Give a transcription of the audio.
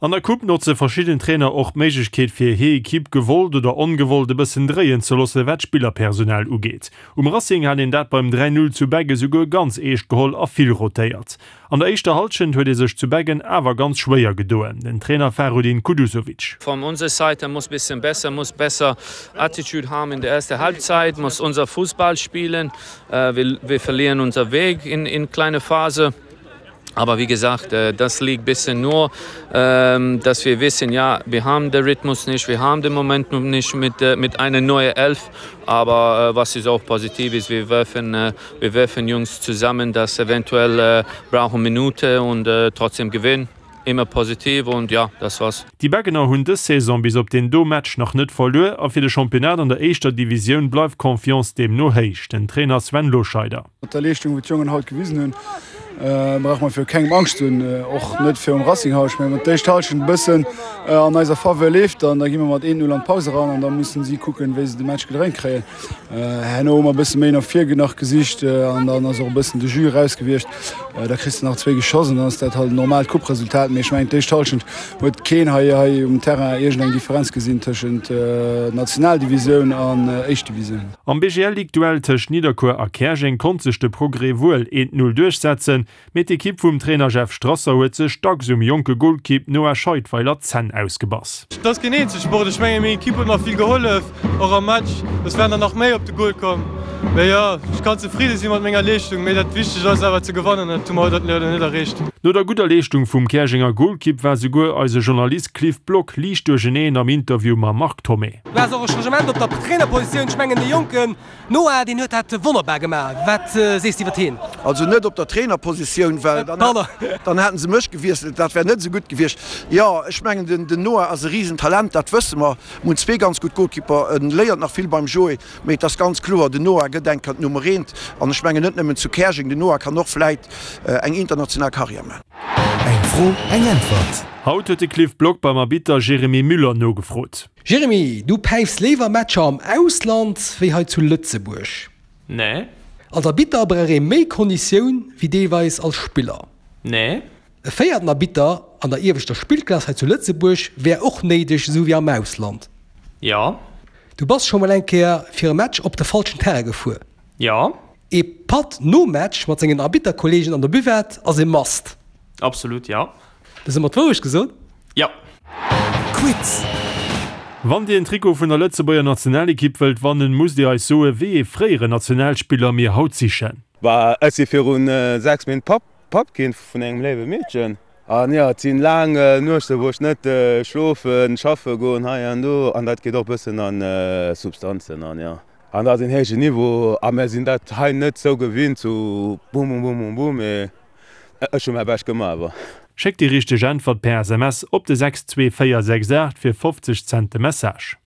An der Coupe notze verschidden Trainer och d'Méiglechkeet fir hir Equipe gewollt oder ongewollt e bëssen dréien ze loosse wat d'Spillerpersonal ugeet. Um Racing hat een dat beim 3, 0 zu Beggen souguer ganz eescht geholl a vill rotéiert. An der éischter Hallschent huet ee sech zu Beggen awer ganz schwéier gedoen, den Trainer Fahrudin Kuduzovic. Von unserer Seite muss bisschen besser, muss besser Attitude haben in der ersten Halbzeit, muss unser Fußball spielen. Wir, wir verlieren unser Weg in, in kleine Phase. Aber wie gesagt, äh, das liegt bisschen nur, ähm, dass wir wissen, ja, wir haben den Rhythmus nicht, wir haben den Moment noch nicht mit, äh, mit einer neuen Elf. Aber äh, was ist auch positiv ist, wir werfen, wir werfen Jungs zusammen, das eventuell brauchen Minute und trotzdem gewinnen. Immer positiv und ja, das war's. Déi Beggener hunn dës Saison bis op deen do Match nach net verluer a fir de Championnat an der éischter Divisioun bleift d'Confiance deemno héich. Den Trainer Sven Loscheider. Mat der Leeschtung, wou d'Jongen haut gewisen hunn, brauche mer viru kengem Angscht ze hunn, och net virum Racing haut. Ech mengen, wann d'éischt Hallschent e bëssen an eiser Faveur leeft, dann da gi mer mat 1-0 an d'Paus eran an da mussen si kucken, wéi se de Match gedréint kréien. Herno hu mer e bësse méi no vir nach gesicht an dann ass och e bëssen de Jus eraus gewiescht. Da kriss de nach zwéi geschoss an dann ass dat halt en normaalt Couperesultat. Mee ech mengen, d'éischt Hallschent huet keen hei hei um Terrain iergendeng Differenz gesinn tëschent Nationaldivisioun an éischt Divisioun. Am BGL-Ligue-Duell tëscht Nidderkuer a Käerjeng konnt sech de Progrès wuel 1, 0 duerchsetzen, mee d'Ekipp vum Trainer Jeff Strasser huet sech dacks um jonke Golkipp Noah Scheidweiler d'Zänn ausgebass. Et ass keen Eenzelsport, ech mengen meng Ekipp huet mer vill gehollef, och am Match, soss wären der nach méi op de Gol komm. Mee jo, ech kann zefridde si mat menger Leeschtung, mee dat Wichtegt ass awer ze gewannen an dat hu mer haut leider net erreecht. No der gudder Leeschtung vum Käerjenger Golkipp war souguer eise Journalist Cliff Block liicht duercheneen am Interview mam Marc Thomé. Du has och e Changement op der Trainerpositioun. Ech mengen de jonken Noah, deen huet dat wonnerbar gemaach. Wat sees de iwwer heen? Also net op der Trainerpositioun, well dann hätten se mech gewiesselt. Dat wär net esou gutt gewiescht. Jo, ech mengen den Noah ass e Risentalent, dat wësse mer. Mir hunn zwee ganz gutt Golkipper. En léiert nach vill beim Joé, mee et ass ganz kloer, den Noah gëtt eng Kéier d'Nummer eent. An ech mengen net nëmmen zu Käerjeng, den Noah kann och vläit eng international Karriär man. Eng Fro, eng Äntwert. Haut huet de Cliff Block beim Arbitter Jérémy Müller nogefrot. Jérémy, du päifs léiwer Matcher am Ausland wéi hei zu Lëtzebuerg? Nee. Als Arbitter brauch ee méi Konditioun wéi deelweis als Spiller? Nee. E véierten Arbitter an der ieweschter Spillklass hei zu Lëtzebuerg wär och néideg, esou wéi am Ausland? Jo. Du bass scho mol eng Kéier fir e Match op de falschen Terrain gefuer? Jo. Ee Patt nom Match mat sengen Arbitterkolleegen an der Buvette ass e Must? Absolut, jo. Hues ëmmer d'Wourecht gesot? Jo. Quiz! Wann dir en Trikot vun der Lëtzebuerger Nationalekipp wëllt wannen, musst dir eis soen, wéi ee fréieren Nationalspiller mir haut sichen. Bah, ech si virun 6 Méint Papp Papp ginn vun engem léiwe Meedchen. An jo, et sinn laang Nuechte wou ech net schlofen, schaffe goen hei an do an dat geet och bëssen an Substanzen an jo. An dat ass een héijen Niveau a mär sinn dat hei net sou gewinnt, sou bum bum bum bum bum, mee Ech hu mäi Bescht gemaach awer. Schéckt déi richteg Äntwert per SMS op de 62468 fir 50 Cent de Message.